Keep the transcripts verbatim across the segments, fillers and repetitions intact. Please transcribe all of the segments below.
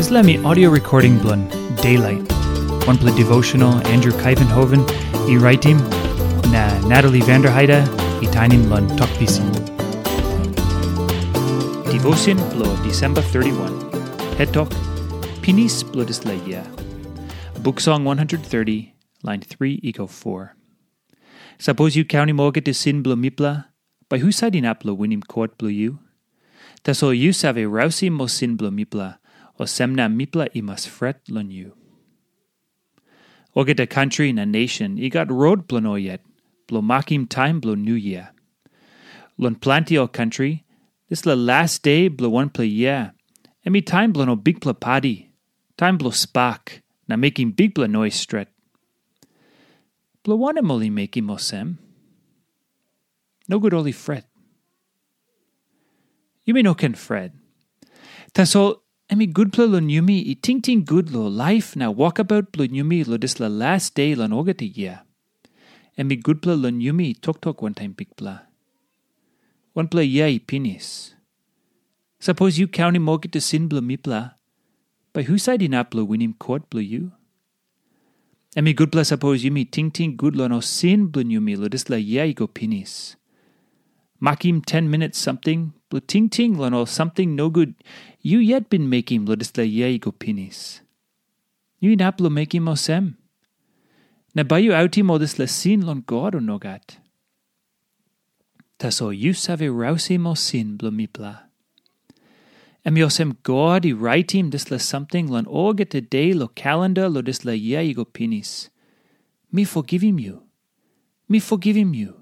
Dispela mi audio recording bilong Daylight, wanpela devotional Andrew Kuyvenhoven i raitim, na Natalie Vanderheide i tainim long Tok Pisin. Devotion bilong December thirty-one. Het tok, Pinis bilong dispela yia. Buk Song one hundred thirty, lain three i go four. Sapos yu kaunim olgeta sin bilong mipela, bai husat inap long winim kot bilong yu? Tasol yu save rausim ol sin bilong mipela, olsem na mipela i mas fret long yu. Olgeta kantri na nation i gat rot bilong ol yet, bilong makim taim bilong Niu Yia. Long planti ol kantri, dispela las de bilong wanpela yia, em i taim bilong ol bikpela padi, taim bilong spak, na mekim bikpela nois stret. Bilong wanem ol i mekim olsem? Nogut ol i fret. Yumi no ken fret. Tasol em i gutpela long yumi i tingting gut long laip na wokabaut bilong yumi long dispela las de long olgeta yia. Em i gutpela long yumi toktok wantaim Bikpela. Wanpela yia i pinis. Sapos yu kaunim olgeta sin bilong mipela, bai husat inap long winim kot bilong yu? Em i gutpela sapos yumi tingting gut long ol sin bilong yumi long dispela yia i go pinis. Makim ten minit samting bilong tingting long ol samting nogut yu yet bin mekim long dispela yia i go pinis. Yu inap long mekim olsem? Na bai yu autim ol dispela sin long God, o nogat? Tasol yu save rausim ol sin bilong mipela. Em i olsem God i raitim dispela samting long olgeta de long kalenda long dispela yia i go pinis. Mi fogivim yu. Mi fogivim yu.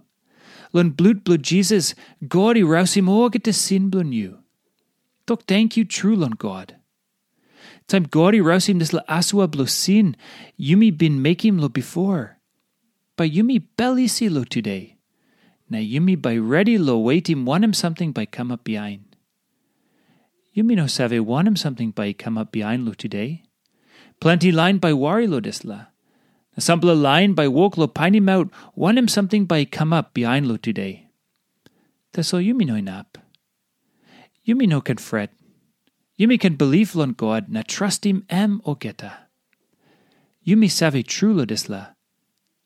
Long blut bilong Jisas, God i rausim olgeta sin bilong yu. Tok tenkyu tru long God. Taim God i rausim dispela asua bilong sin yumi bin mekim long bipo, bai yumi bel isi long tude, na yumi bai redi long wetim wanem samting bai kamap bihain. Yumi no save wanem samting bai i kamap bihain long tude. Planti lain bai wari long dispela, na sampela lain bai wok long painimaut wanem samting bai i kamap bihain long tude. Tasol yumi no inap. Yumi no ken fret. Yumi ken bilip long God na trastim em olgeta. Yumi save tru long dispela,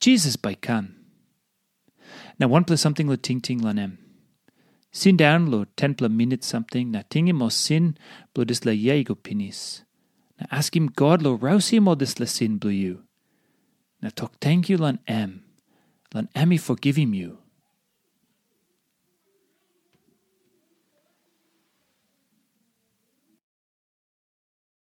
Jisas bai kam. Na wanpela samting long tingting long em. Sindaun long tenpela minit samting na tingim ol sin bilong dispela yia i go pinis. Na askim God long rausim ol dispela sin bilong yu. Na tok tenkyu long em, long em i fogivim yu.